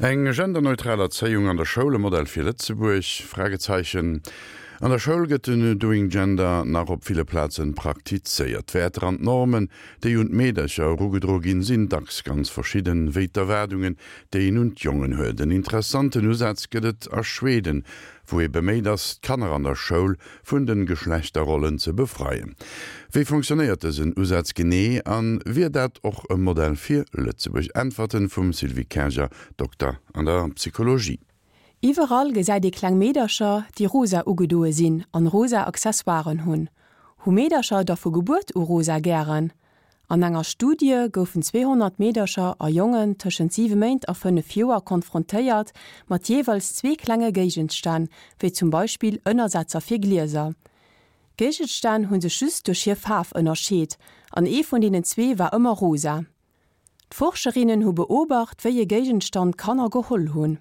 Eng genderneutral Erzéiung an der Schoul, e Modell fir Lëtzebuerg? Fragezeichen An der Schoul gëtt den Doing Gender nach op ville Plazen praktizéiert. D'Wäerter an d'Normen, déi un d'Meedercher erugedro ginn, sinn dacks ganz verschidden, wéi d'Erwaardungen, déi een un d'Jongen huet. En interessanten Usaz gëtt et a Schweden, wou ee beméit ass, d'Kanner an der Schoul vun de Geschlechterrollen ze befreien. Wéi fonctionnéiert dësen Usaz genee a wier dat och e Modell fir Lëtzebuerg? Äntwerten vum Sylvie Kerger, Dokter an der Psychologie. Iwwerall gesäit ee kleng Meedercher, déi rosa ugedoe sinn an rosa Accessoiren hunn. Hu Meedercher da vu Gebuert u rosa gären? An enger Studie goufen 200 Meedercher a Jongen tëschent 7 Méint a 5 Joer konfrontéiert mat jeeweils zwee klenge Géigenstänn, wéi zum Beispill Ënnersetzer fir Glieser. D'Géigenstänn hu sech just duerch hir Faarf ënnerscheet, an ee vun deenen zwee war ëmmer rosa. D'Forscherinnen hu beobacht, wéi e Géigenstand d'Kanner geholl hunn.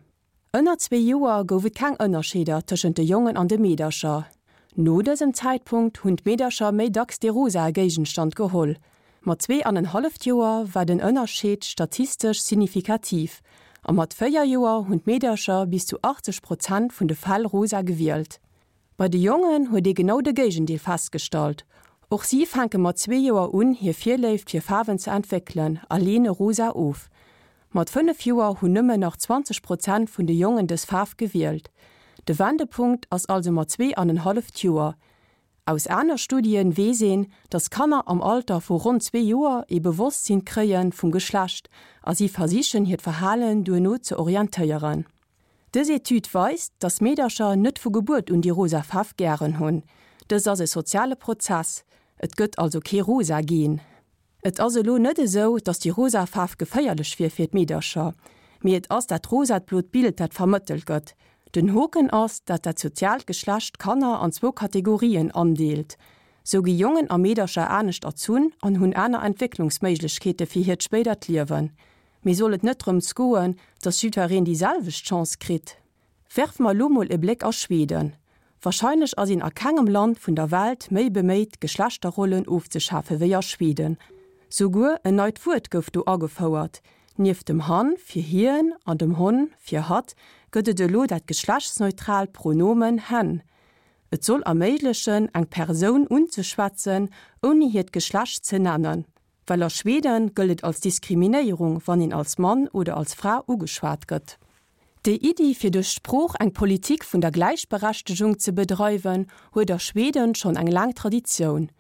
Ënner zwee Joer gouf et keng Ënnerscheeder tëschent de Jongen an de Meedercher. No dësem Zäitpunkt hunn d'Meedercher méi dacks dee rosae Géigenstand geholl. Mat 2,5 Joer war den Ënnerscheed statistesch signifikativ a mat 4 Joer hunn d'Meedercher bis zu 80 Prozent vun de Fäll rosa gewielt. Bei de Jongen huet ee genau de Géigendeel festgestallt. Och si fänke mat zwee Joer un, hir Virléift fir Faarwen ze entwéckelen a leene rosa of. Mat 5 Joer hunn nëmmen nach 20 Prozent vun de Jongen dës Faarf gewielt. De Wendepunkt ass also mat 2,5 Joer. Aus aner Studien weess een, dass Kanner am Alter vu ronn zwee Joer ee Bewosstsinn kréie vum Geschlecht a si versichen hiert Verhalen duerno ze orientéieren. Dës Etüd weist, dass Meedercher net vu Gebuert un déi rosa Faarf gären hunn. Dëst ass e soziale Prozess, et gëtt also kee rosa Gen. Et ass elo net esou, dass déi rosa Faarf geféierlech wier fir d'Meedercher, mee et ass dat rosat-blot Bild, dat vermëttelt gëtt. Den Hoken ass, dat dat soziaalt Geschlecht d'Kanner an zwou Kategorien andeelt. Sou gi Jongen a Meedercher anescht erzunn an hunn aner Entwécklungsméiglechkeete fir hiert spéidert Liewen. Mee soll et net drëms goen, dass jiddwereen déi selwecht Chance kritt? Werfe mer elo mol e Bléck a Schweden. Wahrscheinlech ass een a kengem Land vun der Welt méi beméit d'Geschlechterrollen ofzeschafe wéi a Schweden. Souguer en neit Wuert gouf do agefouert, Nieft dem han fir hien an dem hon fir hatt gëtt et elo dat geschlechtsneutraalt Pronomen hen. Et soll erméiglechen eng Persoun unzeschwätzen ouni hiert Geschlecht ze nennen. Well a Schweden gëllt et als Diskriminéierung wann een als Mann oder als Fra ugeschwat gëtt. Déi Iddi fir duerch d'Sprooch eng Politik vun der Gläichberechtegung ze bedreiwen, huet a Schweden schonn eng laang Traditioun.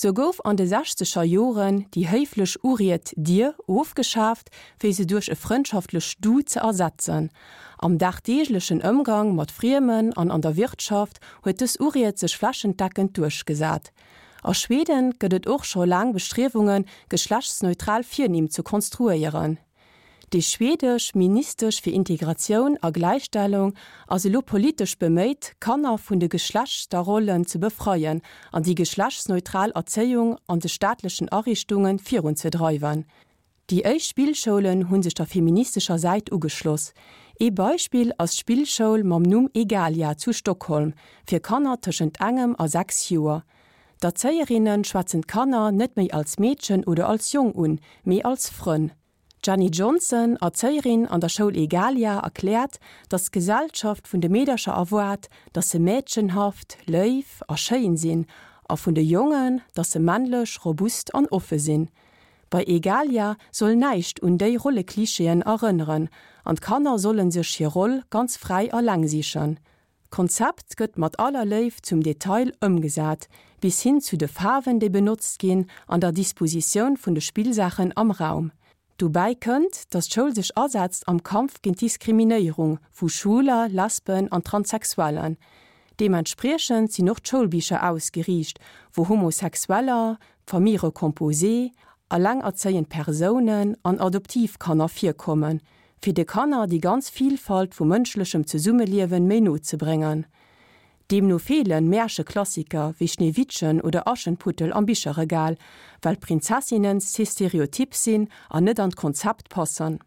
Sou gouf an de sechzeger Joren déi héiflech Uried Dir ofgeschaaft, fir se duerch e frëndschaftlech Du ze ersetzen. Am dagdeeglechen Ëmgang mat Friemen an an der Wirtschaft huet dës Uried sech flächendeckend duerchgesat. A Schweden gëtt et och scho laang Bestriewungen, geschlechtsneutral Virnimm ze konstruéieren. Déi schwedesch Ministesch fir Integratioun a Gläichstellung ass elo politesch beméit, d'Kanner vun de Geschlechterrollen ze befreien an déi geschlechtsneutral Erzéiung an de staatlechen Ariichtunge virunzedreiwen. Déi éischt Spillschoulen hu sech der feministescher Säit ugeschloss. Ee Beispill ass d'Spillschoul mam Numm Egalia zu Stockholm fir Kanner tëschent engem a 6 Joer. D'Erzéierinne schwätzen d'Kanner net méi als Meedchen oder als Jong un, mee als Frënn. D'Jenny Johnson, Erzéierin an der Schoul Egalia, erkläert, datt d'Gesellschaft vun de Meedercher erwaart, datt se mädchenhaft, léif a schéin sinn, a vun de Jongen, datt se männlech, robust an offe sinn. Bei Egalia soll näischt un déi Rolleklichéen erënneren an d'Kanner solle sech hir Roll ganz fräi eleng sichen. D'Konzept gëtt mat aller Léift zum Detail ëmgesat, bis hin zu de Faarwen déi benotzt ginn an der Dispositioun vun de Spillsaachen am Raum. Dobäi kënnt, datt d'Schoul sech asetzt am Kampf géint d'Diskriminéierung vu Schwuler, Lesben an Transsexuellen. Deementspriechend sinn och d'Schoulbicher ausgeriicht, wou Homosexueller, Famille recomposée, alengerzéiend Persounen an Adoptivkanner virkommen, fir de Kanner déi ganz Vielfalt vu mënschlechem Zesummeliewen méi no ze bréngen. Deemno feelen Märcheklassiker wéi Schneewittchen oder Aschenputtel am Bicherregal, well d'Prinzessinnen ze stereotyp sinn an net an d'Konzept passen.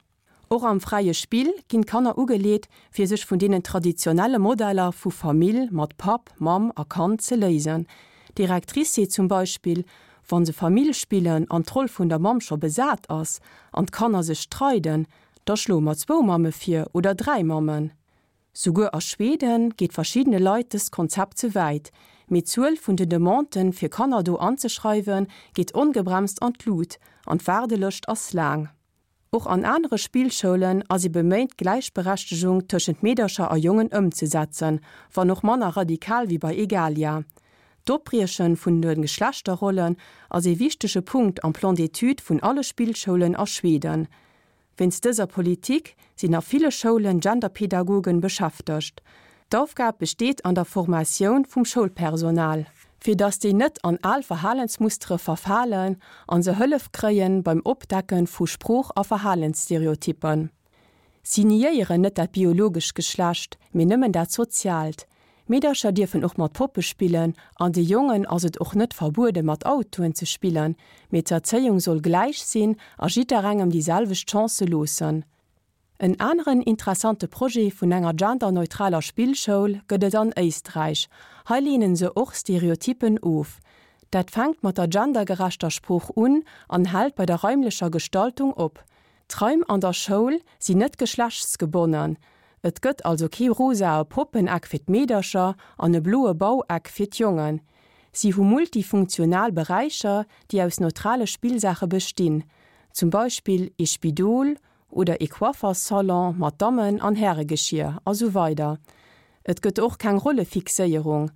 Och am fräie Spill ginn d'Kanner ugeleet, fir sech vun deenen traditionelle Modeller vu Famill mat Papp, Mamm a Kand ze léisen. D'Directrice seet zum Beispill, Wa se Famill spillen an d'Roll vun der Mamm scho besat ass an d'Kanner sech streiden, Da schloe mer zwou Mamme vir oder 3 Mammen. Souguer a Schweden geet verschiddene Leit dëst Konzept ze wäit, mee d'Zuel vun den Demanden, fir Kanner do anzeschreiwen, geet ongebremst an d'Lut an d'Waardelëscht ass laang. Och an anere Spillschoulen ass ee beméint d'Gläichberechtegung tëschent Meedercher a Jongen ëmzesetzen, wann och manner radikal wéi bei Egalia. D'Opbrieche vun de Geschlechterrollen ass ee wichtege Punkt am Plan d'études vun alle Spillschoulen a Schweden. Wéinst dëser Politik sinn a ville Schoulen Genderpedagogen beschäftegt. D'Aufgab besteet an der Formatioun vum Schoulpersonal, fir datt déi net an al Verhalensmustere verfalen an se Hëllef kréien beim Opdecken vu Sprooch a Verhalensstereotyppen. Si niéieren net dat biologescht Geschlecht, mee nëmmen dat soziaalt. Meedercher dierfen och mat Poppe spillen an de Jongen ass et och net verbuede mat Autoen ze spillen, mee d'Erzéiung soll gläich sinn a jidderengem déi selwecht Chancë loossen. En aneren interessante Projet vun enger genderneutraler Spillschoul gëtt et an Éisträich. Hei leenen se och Stereotyppen of. Dat fänkt mat der gendergerechter Sprooch un an hält bei der raimlecher Gestaltung op. D'Raim an der Schoul sinn net geschlechtsgebonnen, et gëtt also kee rosae Poppeneck fir d'Meedercher an e bloe Baueck fir d'Jongen. Si hu multifunktional Beräicher, déi aus neutrale Spillsaache bestinn, zum Beispill ee Spidol oder ee Coifferssalon mat Dammen an Häregeschier a sou weider Et gëtt och keng Rollefixéierung,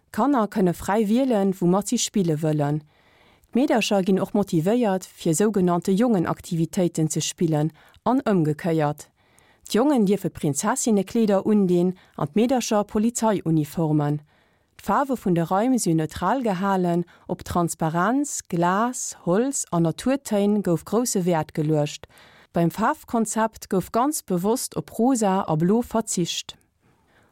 D'Kanner kënne fräi wielen, woumat si spille wëllen. D'Meedercher ginn och motivéiert, fir sougenannte Jongenaktivitéiten ze spillen an ëmgekéiert. D'Jongen dierfe Prinzessinnekleeder undinn an d'Meedercher Polizeiuniformen. D'Faarwe vun de Raim si neutral gehalen, op Transparenz, Glas, Holz an Naturtéin gouf grousse Wäert geluecht. Beim Faarfkonzept gouf ganz bewosst op Rosa a Blo verzicht.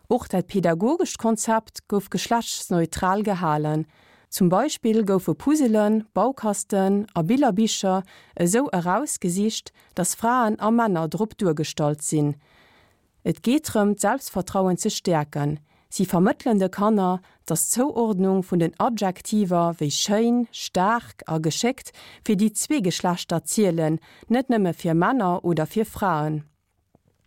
Och dat pedagogescht Konzept gouf geschlechtsneutral gehalen. Zum Beispill goufe Puzzelen, Baukasten a Billerbicher esou erausgesicht, dass Fraen a Männer drop duergestallt sinn. Et geet drëm, d'Selbstvertrauen ze stäerken. Si vermëttelen de Kanner, dass d'Zouordnung vun den Adjektiver wéi schéin, staark a geschéckt fir déi zwee Geschlechter zielen, net nëmme fir Männer oder fir Fraen.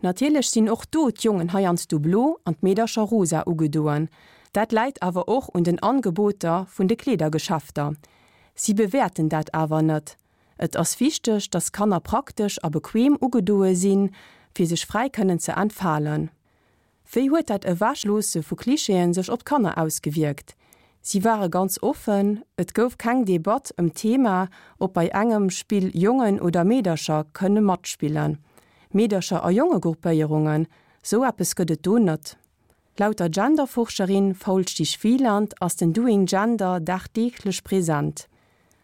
Natierlech sinn och do d'Jongen heiansdo blo an d'Meedercher rosa ugedoen. Dat läit awer och un den Angeboter vun de Kleedergeschäfter. Si bewäerten dat awer net. Et ass wichteg, dass Kanner praktesch a bequem ugedoe sinn, fir sech fräi kënnen ze entfalen. Wéi huet dat Ewechloosse vu Klischeeën sech op d'Kanner ausgewierkt? Si ware ganz offen, et gouf keng Debatt ëm d'Thema, ob bei engem Spill Jongen oder Meedercher kënne matspillen. Meedercher a Jongegruppéierungen, sou eppes gëtt et do net. Laut der Genderforscherin Faulstich-Wieland ass den Doing Gender dagdeeglech present.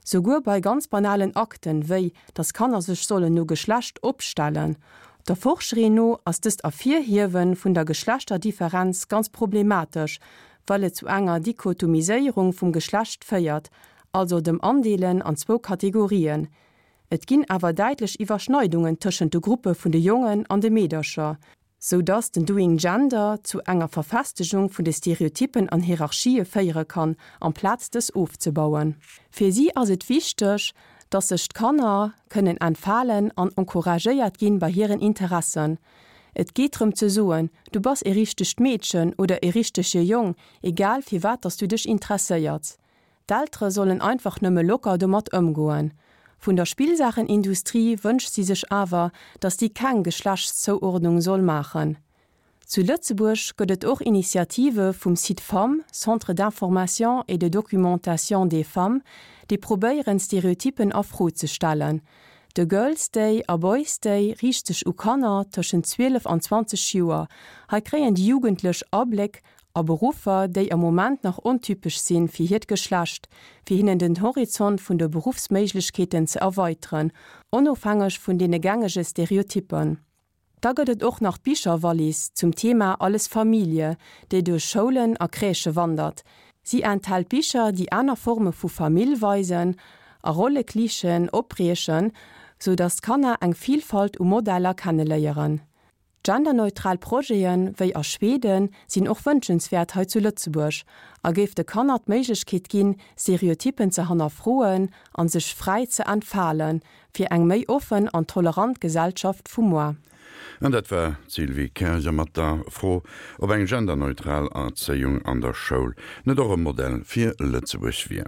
Souguer bei ganz banalen Akten, wéi dass Kanner sech sollen no Geschlecht opstellen. Der Forscherin no ass dëst Ervirhiewe vun der Geschlechterdifferenz ganz problematesch, well et zu enger Dichotomiséierung vum Geschlecht féiert, also dem Andeelen an zwou Kategorien. Et ginn awer däitlech Iwwerschneidungen tëschent de Gruppe vun de Jongen an de Meedercher. sou dass den Doing Gender zu enger Verfestegung vun de Stereotyppen an Hierarchië féiere kann, amplaz dës ofzebauen. Fir si ass et wichteg, dass sech d'Kanner kënnen entfalen an encouragéiert ginn bei hiren Interessen. Et geet drëm ze soen, du bass e richtegt Meedchen oder e richtege Jong, egal fir wat dass du dech interesséierts. D'Eltere sollen einfach nëmme locker domat ëmgoen. Vun der Spillsaachenindustrie wënscht si sech awer, datt déi keng Geschlechtszouordnung soll maachen. Zu Lëtzebuerg gëtt et och Initiative vum Cid-Femmes, Centre d'information et de documentation des femmes, déi probéieren, Stereotyppen a Fro ze stellen. De Girls' Day a Boys' Day riicht sech u Kanner tëschent 12 an 20 Joer. Hei kréien déi Jugendlech Abléck a Beruffer, déi am Moment nach ontypesch sinn fir hiert Geschlecht, fir hinnen den Horizont vun de Beruffsméiglechkeeten ze erweiteren, onofhängeg vun deene gängege Stereotyppen. Da gëtt et och nach d'Bicherwallis zum Thema Alles Familie, déi duerch Schoulen a Crèchë wandert. Si enthält Bicher, déi aner Forme vu Famill weisen a Rolleklischeeën opbriechen, sou datt d'Kanner eng Vilfalt u Modeller kenneléieren. Genderneutral Projete wéi a Schweden sinn och wënschenswäert hei zu Lëtzebuerg a géif de Kanner d'Méiglechkeet ginn, Stereotyppen ze hannerfroen an sech fräi ze entfalen, fir eng méi offen an tolerant Gesellschaft vu moar. An dat war d'Sylvie Kerger mat der Fro, ob eng genderneutral Erzéiung an der Schoul net och e Modell fir Lëtzebuerg wier.